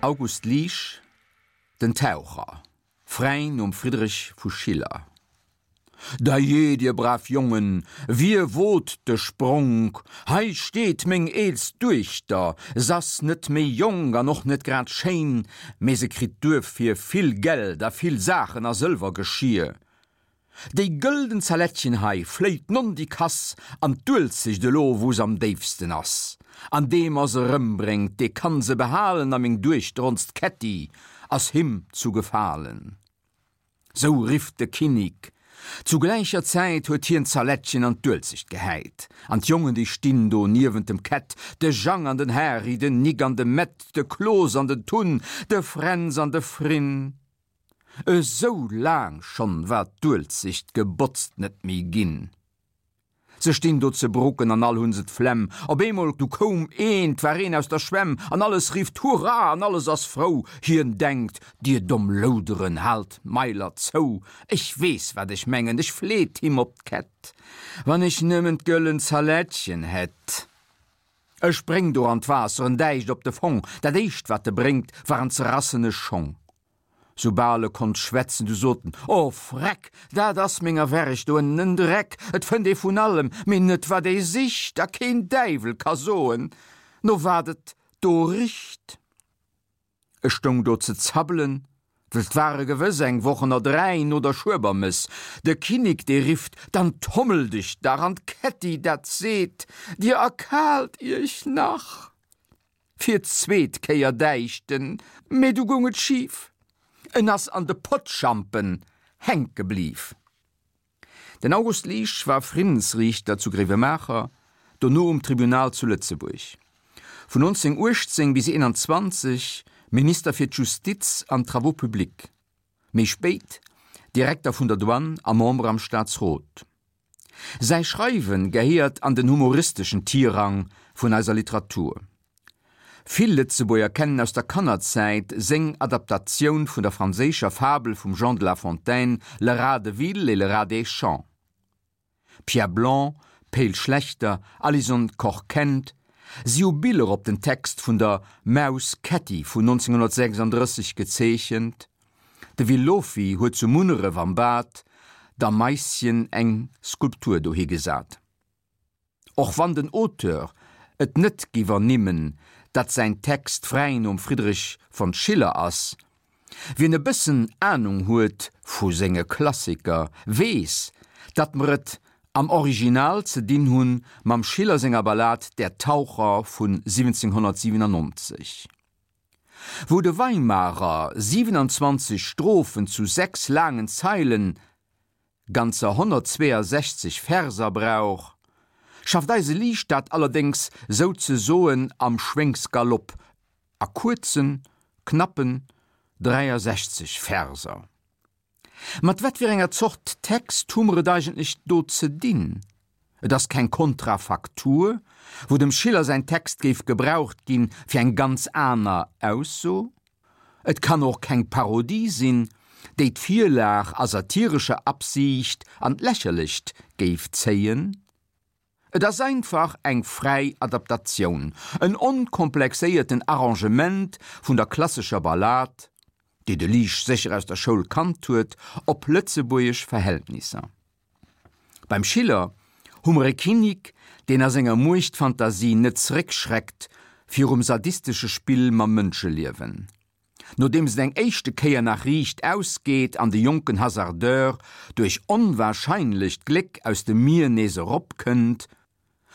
August Liesch, Den Taucher, fräi nom Friedrich vu Schiller. Dajee, dir brav Jongen, wie wot de Spronk? Hei steet meng eelst Duechter, s'ass net méi jonk an och net grad schéin, mee se kritt duerfir vill Geld a vill Saachen a Sëlwergeschier. Déi gëlden Zalettchen hei fléit nondikass an d'Uelzecht elo wou s'am déifsten ass. An dee mer se rëmbréngt, dee kann se behalen a meng Duechter, onst Kätti, ass him zu gefalen. Sou rifft de Kinnik. Zu gläicher Zäit huet hien d'Zalettchen an d'Uelzecht gehäit. An d'Jongen déi stinn do niewent dem Kätt, de Jang an den Hary, den Nik an de Mett, de Klos an den Tunn, de Fränz an de Frinn. Esou laang schonn war d'Uelzecht gebotzt net méi ginn. Se stinn do ze brucken an all hunn se d'Flemm. Op eemol du koum een, 't war een aus der Schwämm, an alles rifft Hurra an alles ass frou. Hien denkt, Dir domm Louderen, haalt d'Mailer zou, ech weess wat ech mengen, ech fleet him op d'Kett, wann ech nëmmen d'gëllen Zalettchen hätt. E spréngt do an d'Waasser, en däicht op de Fong, dat éischt wat e bréngt, waren zerrassene Schong. Soubal e konnt schwätzen, du sot en, O Freck, dat ass menger Werg do ënnen en Dreck, et fënnt ee vun allem, mee net wat ee sicht, a keen Däiwel ka soen, no wat et do richt. Ech stoung do ze zabbelen, well 't ware gewëss eng Woch ënner 3 no der Schuebermëss. De Kinnik, dee rifft, Dann tommel dech dach! An d'Kätti, dat seet, Dir erkaalt iech nach! Fir d'zweet Kéier däicht en, mee du goung et schif, en ass an de Pottschampen hänke bliw. Den August Liesch war Friddensriichter zu Gréiwemaacher, dono um Tribunal zu Lëtzebuerg. Vun 1918 bis 21 Minister fir d'Justiz an d'Travaux publics, méi spéit Direkter vun der Douane a Member am Staatsrot. Säi Schreiwe gehéiert an den humoristeschen Tirang vun eiser Literatur. Vill Lëtzebuerger kennen aus der Kannerzäit seng Adaptatioun vun der franséischer Fabel vum Jean de La Fontaine Le rat de ville et le rat des champs. Pierre Blanc, Pe'l Schlechter, Alison Koch-Kent, si hu Biller op den Text vun der Maus Kätti vun 1936 gezeechent. De Will Lofy huet zu Munneref am Bad der Maisschen eng Skulptur dohi gesat. Och wann den Auteur et net giff ernimmen, datt säin Text fräi nom Friedrich von Schiller ass, wien e bëssen Anung huet vu senge Klassiker, weess, datt mer et am Original ze dinn hunn mam Schiller senger Ballad Der Taucher vun 1797. Wou de Weimarer 27 Strophen zu 6 laangen Zeilen, ganzer 162 Verser brauch, schafft eise Liesch dat allerdéngs souzesoen am Schwéngsgalopp a kuerzen, knappen 63 Verser. Mat wat fir enger Zort Text hu mer et eigentlech do ze dinn? Et ass keng Kontrafaktur, wou dem Schiller säin Text géif gebraucht ginn fir eng ganz aner Ausso. Et kann och keng Parodie sinn, déi d'Virlag a satirescher Absiicht an d'Lächerlecht géif zéien. Et ass einfach eng fräi Adaptatioun, en onkomplexéierten Arrangement vun der klassescher Ballad, déi de Liesch sécher aus der Schoul kannt huet, op lëtzebuergesch Verhältnisser. Beim Schiller hu mer e Kinnik, deen a senger Muechtfantasie net zeréckschreckt virum sadistesche Spill mam Mënscheliewen. Nodeems et eng éischte Kéier nach riicht ausgeet an de jonken Hasardeur duerch onwahrscheinlecht Gléck aus dem Mier nees erop kënnt,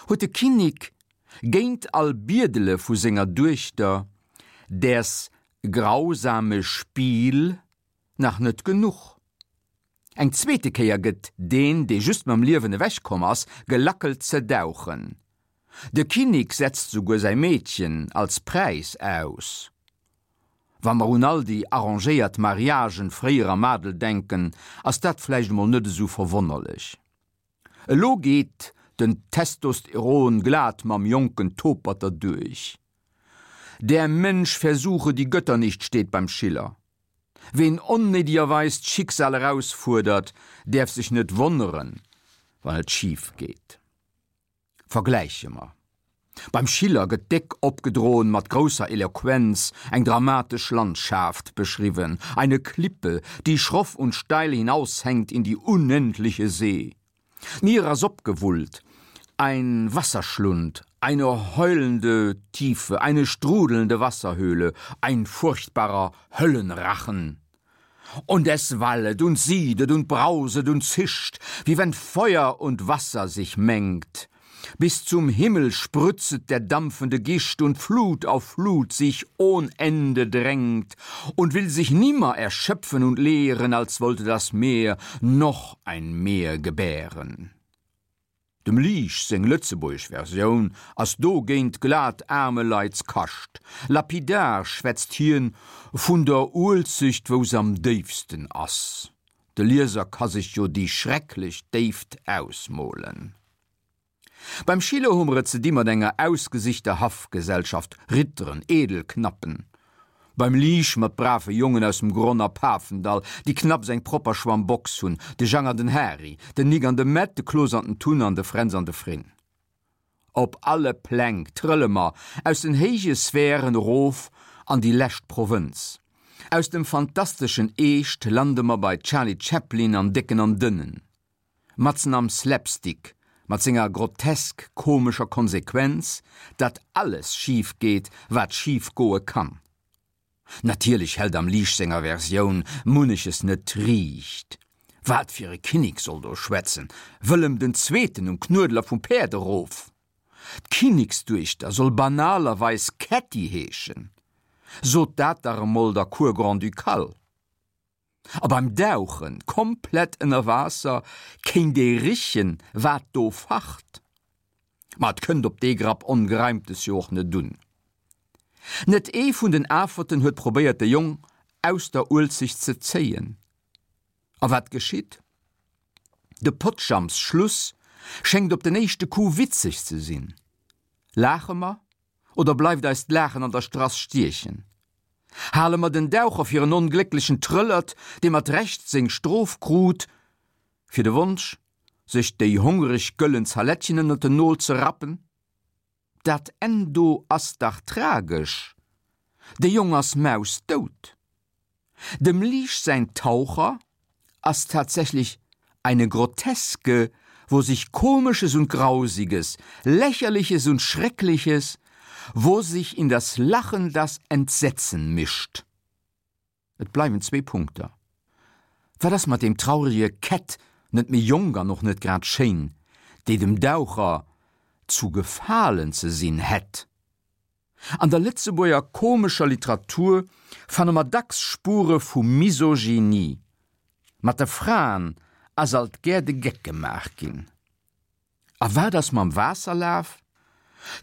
huet de Kinnik géint all Biedele vu senger Duechter däers grausame Spiel nach net genuch. Eng zweete Kéier gëtt deen, dee just mam Liewen ewech komm ass, gelackelt ze dauchen. De Kinnik setzt souguer säi Meedchen als Präis aus. Wa mer un all déi arrangéiert Mariagen fréier am Adel denken, ass dat vläicht emol net esou verwonnerlech. Elo geet den Testosteron glat mam jonken Topert derduerch. Der Mensch versuche die Götter nicht steet beim Schiller. Ween onnéidegerweis d'Schicksal erausfuerdert, däerf sech net wonneren, wann et schif geet. Vergläiche mer. Beim Schiller gëtt déck opgedroen, mat grousser Eloquenz eng dramatesch Landschaaft beschriwwen, eine Klippe, die schroff und steil hinaushängt in die unendliche See. D'Mier ass opgewullt, ein Wasserschlund, eine heulende Tiefe, eine strudelnde Wasserhöhle, ein furchtbarer Höllenrachen. Und es wallet und siedet und brauset und zischt, wie wenn Feuer und Wasser sich mengt. Bis zum Himmel sprützet der dampfende Gischt und Flut auf Flut sich ohn Ende drängt und will sich nimmer erschöpfen und leeren, als wollte das Meer noch ein Meer gebären. Dem Liesch seng lëtzebuergesch Versioun ass dogéint glat Aarmeleitskascht. Lapidar schwätzt hien vun der Uelzecht wou s'am déifsten ass. De Lieser ka sech jo déi schrecklech Déift ausmolen. Beim Schiller hu mer et ze di mat enger ausgesichter Haffgesellschaft, Ritteren, Edelknappen. Beim Liesch mat brave Jongen aus dem Gronn a Pafendall, déi knapps eng propper Schwammbox hunn, de Jang an den Hari, den Nik an de Mätt, de Klos an den Tun an de Fränz an de Frinn. Op alle Pläng trëlle mer aus den héije Sphären erof an déi lescht Provënz. Aus dem fantasteschen Eescht lande mer bei Charlie Chaplin an Décken an Dënnen. Matzen am Slapstick, mat senger grotesk komescher Konsequenz, datt alles schif geet, wat schif goe kann. Natierlech hält am Liesch senger Versioun munneches net riicht. Wat fir e Kinnek soll do schwätzen? Wëllem den Zweeten um Knuedler vum Päerd erof? D'Kinneksduechter soll banalerweis Kätti heeschen. Sot dat dach emol der Cour grand-ducale. A beim Dauchen, komplett ënner Waasser, kéint ee richen, wat do facht. Ma et kënnt op dee Grapp Ongereimtes jo och net un. Net ee vun den Aferten huet probéiert, de Jong aus der Uelzecht ze zéien. A wat geschitt? De Pottjamps-Schluss schéngt op den éischte Coup witzeg ze sinn. Laache mer oder bleift eis d'Laachen an der Strass stiechen? Hale mer den Daucher fir en onglécklechen Trëllert, dee mat Recht seng Strof krut, fir de Wonsch, sech déi hongereg gëllen Zalettchen ënnert den Nol ze rappen? Dat Enn do ass dach tragesch, de Jong ass mausdout. Dem Liesch säin Taucher ass tatsächlich eine Groteske, wo sich Komisches und Grausiges, Lächerliches und Schreckliches, wo sich in das Lachen das Entsetzen mischt. Et bleiwen zwee Punkter. Wat ass mat deem traurege Kätt, net méi jonk an och net grad schéin, déi dem Daucher zu gefalen ze sinn hätt? An der Lëtzebuerger komescher Literatur fanne mer dacks Spure vu Misogynie. Mat de Fraen ass alt gär de Geck gemaach ginn. A wat ass mam Waasserlaf?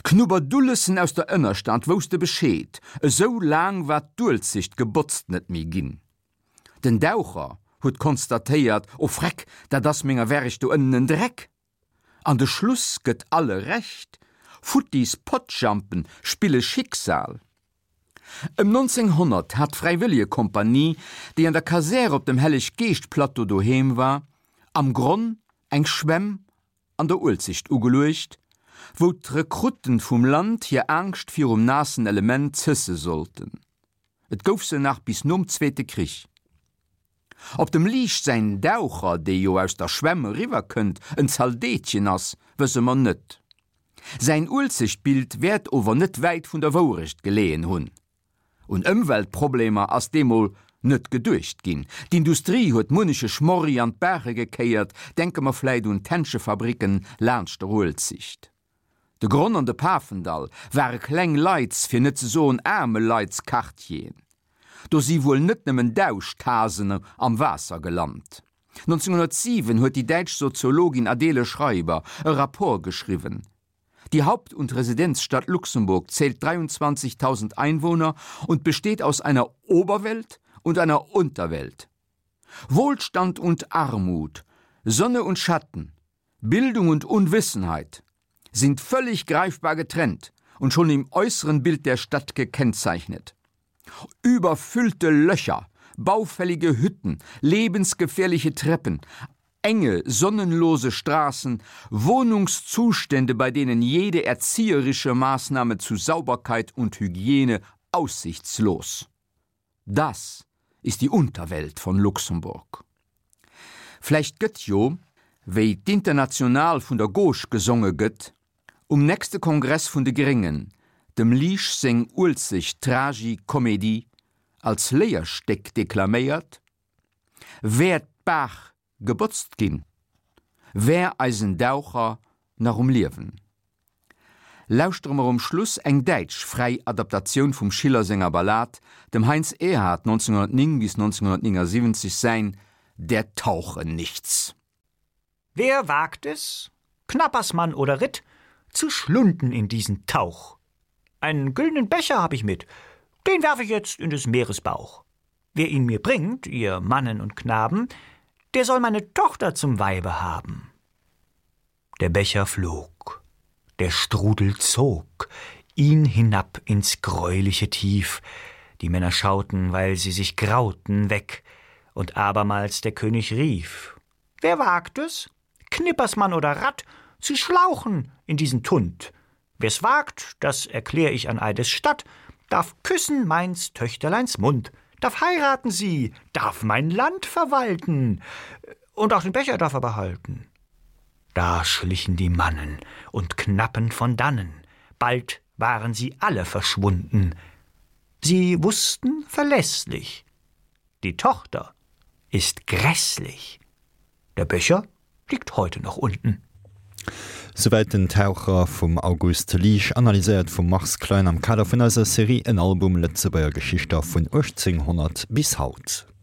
D'Knubberdullesen aus der Ënnerstad wousste Bescheed, esou laang war d'Uelzecht gebotzt net méi ginn. Den Daucher huet konstatéiert, O Freck, dat ass menger Werg do ënnen en Dreck! An de Schluss gëtt alle Recht, futtis Pottjampen spille Schicksal. Ëm 1900 hat d'Fräiwëllegekompanie, déi an der Kasär op dem Helleg-Geescht-Plateau doheem war, am Gronn eng Schwämm an der Uelzecht ugeluecht, wou d'Rekrutten vum Land hir Aangscht virum naassen Element zësse sollten. Et gouf se nach bis nom Zweete Krich. Ob dem Liesch säin Daucher, dee jo aus der Schwämm eriwwer kënnt, en Zaldeetchen ass, wësse mer net. Säin Uelzechtbild wäert ower net wäit vun der Wourecht geleeën hunn. Un Ëmweltproblemer ass deemol net geduecht ginn. D'Industrie huet munneche Schmorri an d'Baache gekéiert, denke mer vläit un d'Händschefabricken laanscht der Uelzicht. De Gronn an de Pafendall ware kleng Leits, fir net ze soen aarme Leits-Quartieren. Do si wuel net nëmmen Dauschthasen am Waasser gelant. 1907 huet déi däitsch Soziologin Adele Schreiber e Rapport geschriwwen. Die Haupt und Residenzstadt Luxemburg zählt 23.000 Einwohner und besteht aus einer Oberwelt und einer Unterwelt. Wohlstand und Armut, Sonne und Schatten, Bildung und Unwissenheit sind völlig greifbar getrennt und schon im äußeren Bild der Stadt gekennzeichnet. Überfüllte Löcher, baufällige Hütten, lebensgefährliche Treppen. Enge, sonnenlose Straßen, Wohnungszustände, bei denen jede erzieherische Maßnahme zu Sauberkeit und Hygiene aussichtslos. Das ist die Unterwelt von Luxemburg. Vläicht gëtt jo, wéi d'International vun der Gauche gesonge gëtt, um nächste Kongress vun de Gréngen dem Liesch seng Uelzecht Tragi-Comédie als Léierstéck deklaméiert, Wär d'Baach gebotzt ginn, wär eisen Daucher nach um Liewen. Lauschtere mer um Schluss eng däitsch fräi Adaptatioun vum Schiller senger Ballad, dem Heinz Erhardt 1909 bis 1979 säin Der Tauche nichts. Wer wagt es, Knappersmann oder Ritt, zu schlunden in diesen Tauch? Einen güldenen Becher hab ich mit, den werf ich jetzt in des Meeres Bauch. Wer ihn mir bringt, ihr Mannen und Knaben, der soll meine Tochter zum Weibe haben. Der Becher flog, der Strudel zog ihn hinab ins greuliche Tief. Die Männer schauten, weil sie sich grauten, weg, und abermals der König rief: Wer wagt es, Knippersmann oder Rat, zu schlauchen in diesen Tund? Wer's wagt, das erklär ich an Eides Statt, darf küssen meins Töchterleins Mund, darf heiraten sie, darf mein Land verwalten, und auch den Becher darf er behalten. Da schlichen die Mannen und Knappen von dannen, bald waren sie alle verschwunden. Sie wussten verlässlich, die Tochter ist grässlich. Der Becher liegt heute noch unten. Souwäit den Taucher vum August Liesch, analyséiert vum Mars Klein am Kader vun eiser Serie En Album Lëtzebuerger Geschichter vun 1800 bis haut.